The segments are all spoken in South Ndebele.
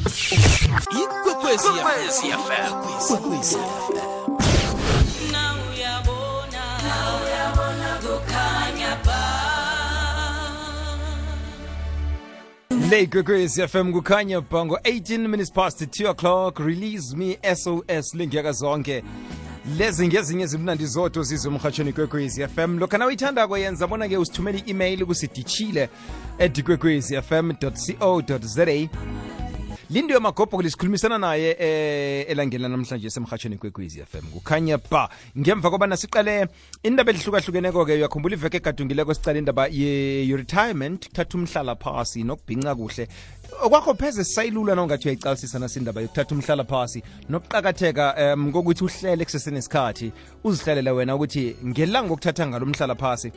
Ikwekwezi FM. Now uyabona kukhanya ba. Le Ikwekwezi FM kukhanya bango 18 minutes past 2 o'clock. Release me SOS link yakazonke. Lezi ngezinye ezimnandi zoto zizwe emhatshweni Ikwekwezi FM. Lokho na uyithanda kwenza bona ke usithumele i-email kusidichile@ikwekwezifm.co.za. Lindiwe Magobho lisikhulumisana naye elangeni namhlanje semhatshweni Ikwekwezi FM kukhanya ba. Ngemva kobana siqale indaba ehlukahlukeneko ke uyakhumbula iveke egadungileko sicala indaba ye-retirement, kuthatha umhlala phasi nokubhinca kuhle. Okwakho pheze sayilula nawungathi uyayicalisisa nasindaba yokuthatha umhlala phasi nokuqakatheka ngokuthi uhlele kusesenesikhathi uzihlalele wena ukuthi ngelanga ngokuthatha ngalo umhlala phasi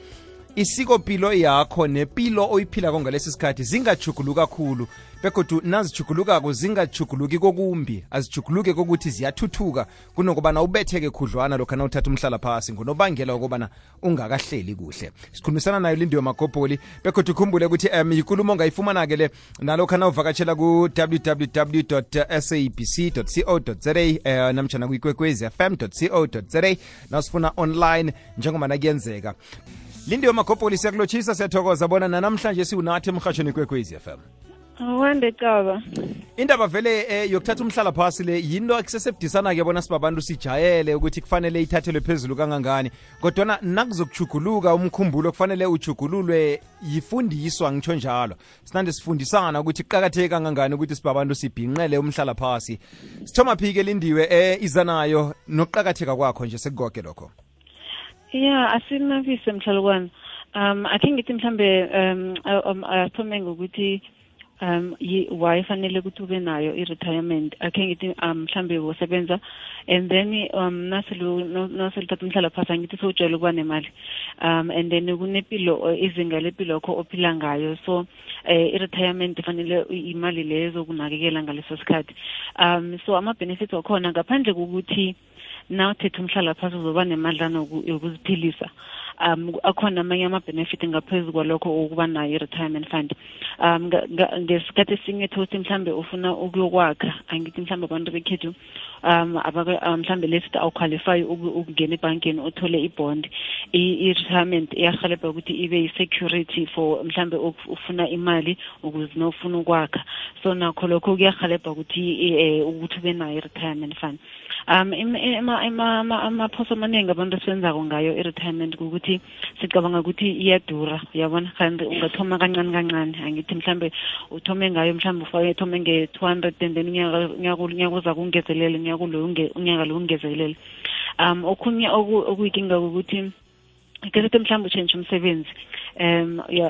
isikopilo yakho nepilo oyiphila ngalesi sikhathi zingajuguluka kakhulu begodu nazijugulukako zingajuguluki kokumbi azijuguluke kokuthi ziyathuthuka kunokubana ubetheke khudlwana lokho na uthatha umhlala phasi ngonobangela ukubana ungakahleli kuhle. Sikhulumisana nayo Lindiwe Magobho begodu ukhumbule ukuthi ikulumo ongayifumana ke le nalokho na uvakatshela ku www.sabc.co.za namtjana ku ikwekwezifm.co.za nasifuna online njengoba nakuyenzeka. Lindiwe Magobho siyakulotshisa siyathokoza bona namhlanje siunathi emhatshweni Ikwekwezi FM. Wande Caba. Indaba vele yokuthatha umhlala phasi le yinto eksesebudisana ke bona sibabantu sijayele ukuthi kufanele ithathelwe phezulu kangangani kodwa nakuzokujuguluka umkhumbulo kufanele ujugululwe yifundiswa ngitsho njalo. Sinande sifundisana ukuthi kuqakatheke kangangani ukuthi sibabantu sibhinqele umhlala phasi. Sithoma phike Lindiwe izanayo nokuqakatheka kwakho nje sekugoke lokho. Yeah, asinavise mhlalukwana. Akhe ngithi mhlambe athome ngokuthi why fanele ukuthi ube nayo i-retirement. Akhe ngithi mhlambe wosebenza and then naseluthatha umhlala phasi ngithi sowujwayele ukuba nemali and then kunepilo izinga lepilo yakho ophila ngayo so i-retirement fanele imali lezo kunakekela ngaleso sikhathi. So ama-benefits wakhona ngaphandle kokuthi now uthethe umhlala phasi uzoba nemadlana yokuziphilisa. Akhona amanye ama-benefit ngaphezu kwalokho ukuba nayo i-retirement fund. Ngesikhathi esinye thothi mhlambe ufuna ukuyokwakha angithi mhlambe abantu bekhethu mhlambe lesithi awuqualify ukungena ebhankeni uthole i-bond. I-retirement iyahelebha ukuthi ibe yi-security for mhlambe ufuna imali ukuze nofuna ukwakha. So nakho lokho kuyahelebha ukuthi ube nayo i-retirement fund. Amaphoso amaningi abantu esenzako ngayo i-retirement ukuthi sicabanga ukuthi iyadura yabona kanti ungathoma kancane kancane angithi mhlambe uthome ngayo mhlambe uthome nge-200 and then unyaka uza kungezelele unyaka lo ungezelele. Okhunye okuyikinga ukuthi kesethe mhlambe uchange umsebenzi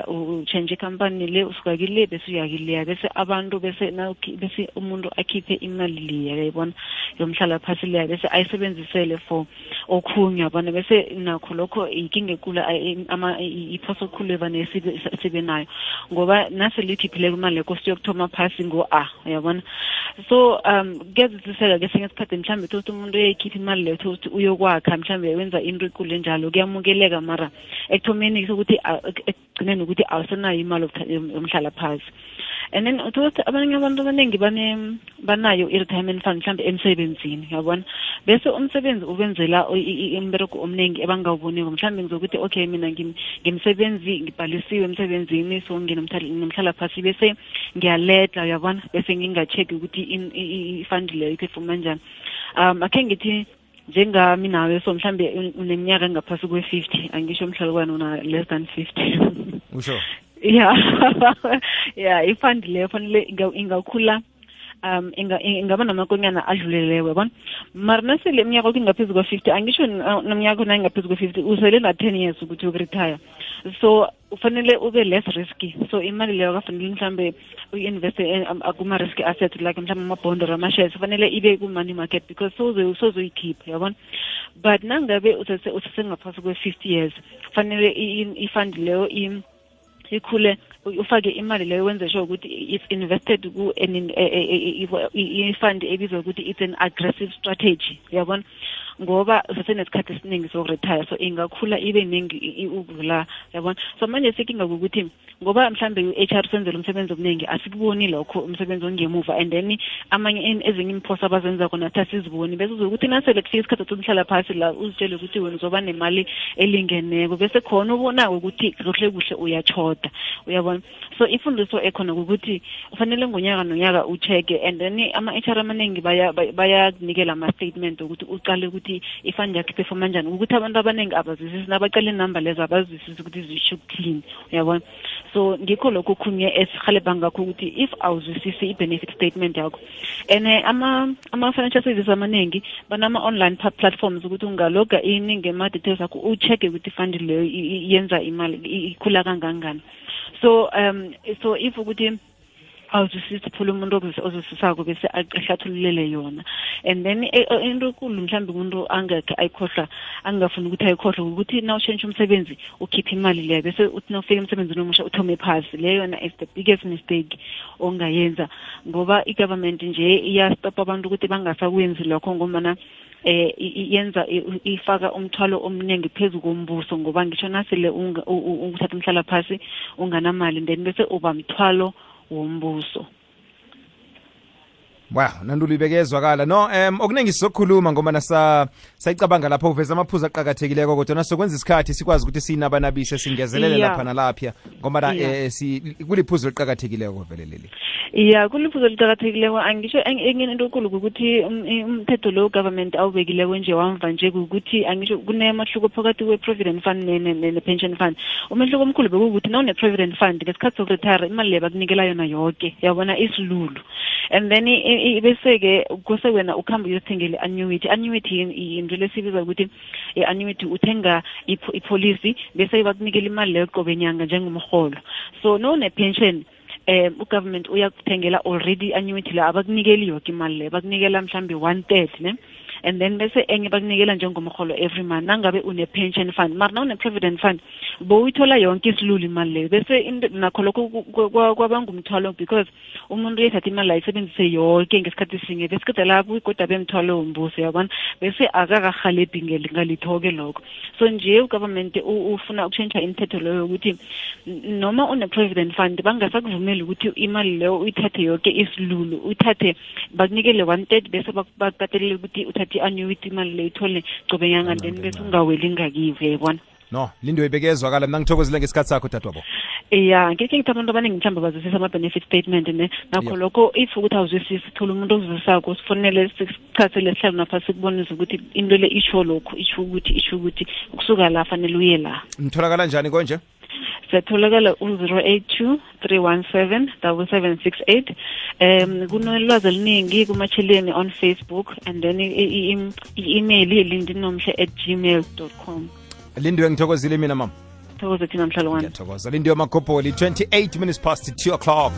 uchange company le usuka kile bese uyakile bese abantu bese umuntu akhiphe imali le yayibona yomhlala phasi le bese ayisebenzisele for okhunye yabona bese nakho lokho ikinga ekula iphoso khulu evane sibe nayo ngoba nase likhiphile imali lekho siyokuthoma phasi yabona. So kuyazisela ke sengesikhathi mhlambe ukuthi umuntu uyayikhipha imali le ukuthi uyokwakha mhlambe wenza into ekule njalo kuyamukeleka mara ekuthomeni ukuthi ekugcineni ukuthi awusenayo imali yomhlala phasi. And then ukuthi abanye abantu abaningi banayo i-retirement fund mhlambe emsebenzini yabona bese umsebenzi ubenzela imbereko omningi ebangawuboniko mhlambe ngizokuthi okay mina ngimsebenzi ngibhalisiwe emsebenzini so nginomhlala phasi bese ngiyaledla yabona bese ngingacheck ukuthi i-fund leyo iphefuma njani. Akhe ngithi njengami nawe so mhlambe uneminyaka engaphasi kwe-50 angisho mhlalukwana una less than 50. Usho? Yeah. Yeah, ifund leyo fanele ingakhula ingaba namakonyana adluleleyo yabona mara nasele iminyaka ukuthi ingaphezu kwa-50 angisho nomnyaka una ingaphezu kwa-50 usele na-10 years ukuthi ukuretire so ufanele ube less risky so imali leyo kafanele mhlambe uyi-investe kuma-risky assets like mhlambe ama-bond or ama-shares fanele ibe ku-money market because sozoyikhipha yabona but nangabe usesengaphasi kwe-50 years fanele ifund leyo ikhule ufake imali leyo wenze sure ukuthi it's invested ku i-fund ebizwa ukuthi it's an aggressive strategy yabona ngoba usesenesikhathi esiningi sokuretire, so ingakhula ibe ningi ukudlula, yabona. So manje sekinga ukuthi ngoba mhlambe u-HR senzela umsebenzi omningi asikuboni lokho umsebenzi ongemuva, and then amanye ezinye imphosa abazenza khona asiziboni, bese uzokuthi nasele kufika isikhathi sokuhlala phasi la uzitshele ukuthi wena uzoba nemali elingeneko, bese khona ubonako ukuthi kuhle kuhle uyachoda, uyabona. So ifundiso ekhona ukuthi ufanele ngonyaka nonyaka ucheke, and then ama-HR amaningi bayakunikela ama-statement ukuthi uqale ukuthi ifund yakhe performa njani, ukuthi abantu abaningi abazwisisi nabaqala inumber lezo abazwisisi ukuthi zisho ukuthini, uyabona. So ngikho lokho khunye esihalebha ngakho ukuthi if awuzwisisi i-benefit statement yakho, and ama-financial services amaningi banama-online platforms ukuthi ungaloga ini ngema-details akho ucheke ukuthi ifund leyo yenza imali ikhula kangangani. So if ukuthi awuzwisisi phula umuntu ozwisisako bese ahlathululele yona, and then into enkulu mhlawumbe umuntu angekhe ayikhohlwa, angafuni ukuthi ayikhohlwe ukuthi na ushintsha umsebenzi ukhipha imali leyo bese uthi nawufika emsebenzini omusha uthome phasi. Leyo yona is the biggest mistake ongayenza, ngoba i-government nje iyastopa abantu ukuthi bangasakwenzi lokho, ngoba yenza ifaka umthwalo omningi phezu kombuso, ngoba ngisho nasele uthatha umhlala phasi unganamali then bese uba mthwalo wombuso. Wow, Nandulu ibekezwakala. No, okuningi sizokhuluma ngoba sayicabanga lapho uveza amaphuzu aqhakathekileko, kodwa nasokwenza isikhathi sikwazi ukuthi sinabanabise singezelele lapha nalapha ngoba kuliphuzu liqhakathekileko vele leli. Kuliphuzu liqhakathekileko. Angisho enye into enkulu ukuthi umthetho lo government awubekileko nje wamva nje ukuthi angisho kunemahluko phakathi kwe-provident fund ne-pension fund. Umehluko omkhulu bekuwukuthi nawune-provident fund ngesikhathi sokuretire imali leyo bakunikela yona yonke, yabona, isilulu. And then bese-ke kuse wena ukhamba uyothengela i-annuity. Annuity into lesibiza ukuthi i-annuity uthenga ipolicy bese bakunikela imali leyo qobe nyanga njengomholo. So ne-pension ugovernment uyakuthengela already annuity la, abakunikeli yonke imali leyo, bakunikela mhlambe 1/3 ne, and then bese enye bakunikela njengomholo every month nangabe une-pension fund. Mara na une-provident fund bowuyithola yonke isilulu imali leyo, bese nakho lokho kwabangumthwalo because umuntu uyethatha imali ayisebenzise yonke ngesikhathi sinye bese kude lapho igoda bemthwalo wombuso, yabona, bese akakahalebhi ngalitho-ke lokho. So nje ugovernment ufuna ukushintsha imithetho leyo ukuthi noma une-provident fund bangasakuvumeli ukuthi imali leyo uyithathe yonke isilulu, uyithathe bakunikele 1/3 bese bakatelele ukuthi uthathe i-annuity imali leyo ithole qobe nyanga then bese ungaweli ngakiwe, yabona. No, Lindo ibekezwakala. Mina ngithokozile ngesikhathi sakho dadwabo. Ngeke ngithi abantu abaningi mhlawumbe bazwisisa ama-benefit statement nakho lokho if ukuthi awuzwisisi thola umuntu ozwisisako sifonele sichathele sihlale naphasi sikubonise ukuthi into le isho lokhu isho ukuthi ukusuka la fanele uye la. Nitholakala njani konje? Setholakala 082-317-7768. Kunolwazi oluningi kumacheleni on Facebook, and then i-email lindinomhle@gmail.com. Lindiwe ngithokozile mina mama. Thokoza thina mhlalo wami. Ngiyathokoza. Lindiwe Makopoli, 28 minutes past 2 o'clock.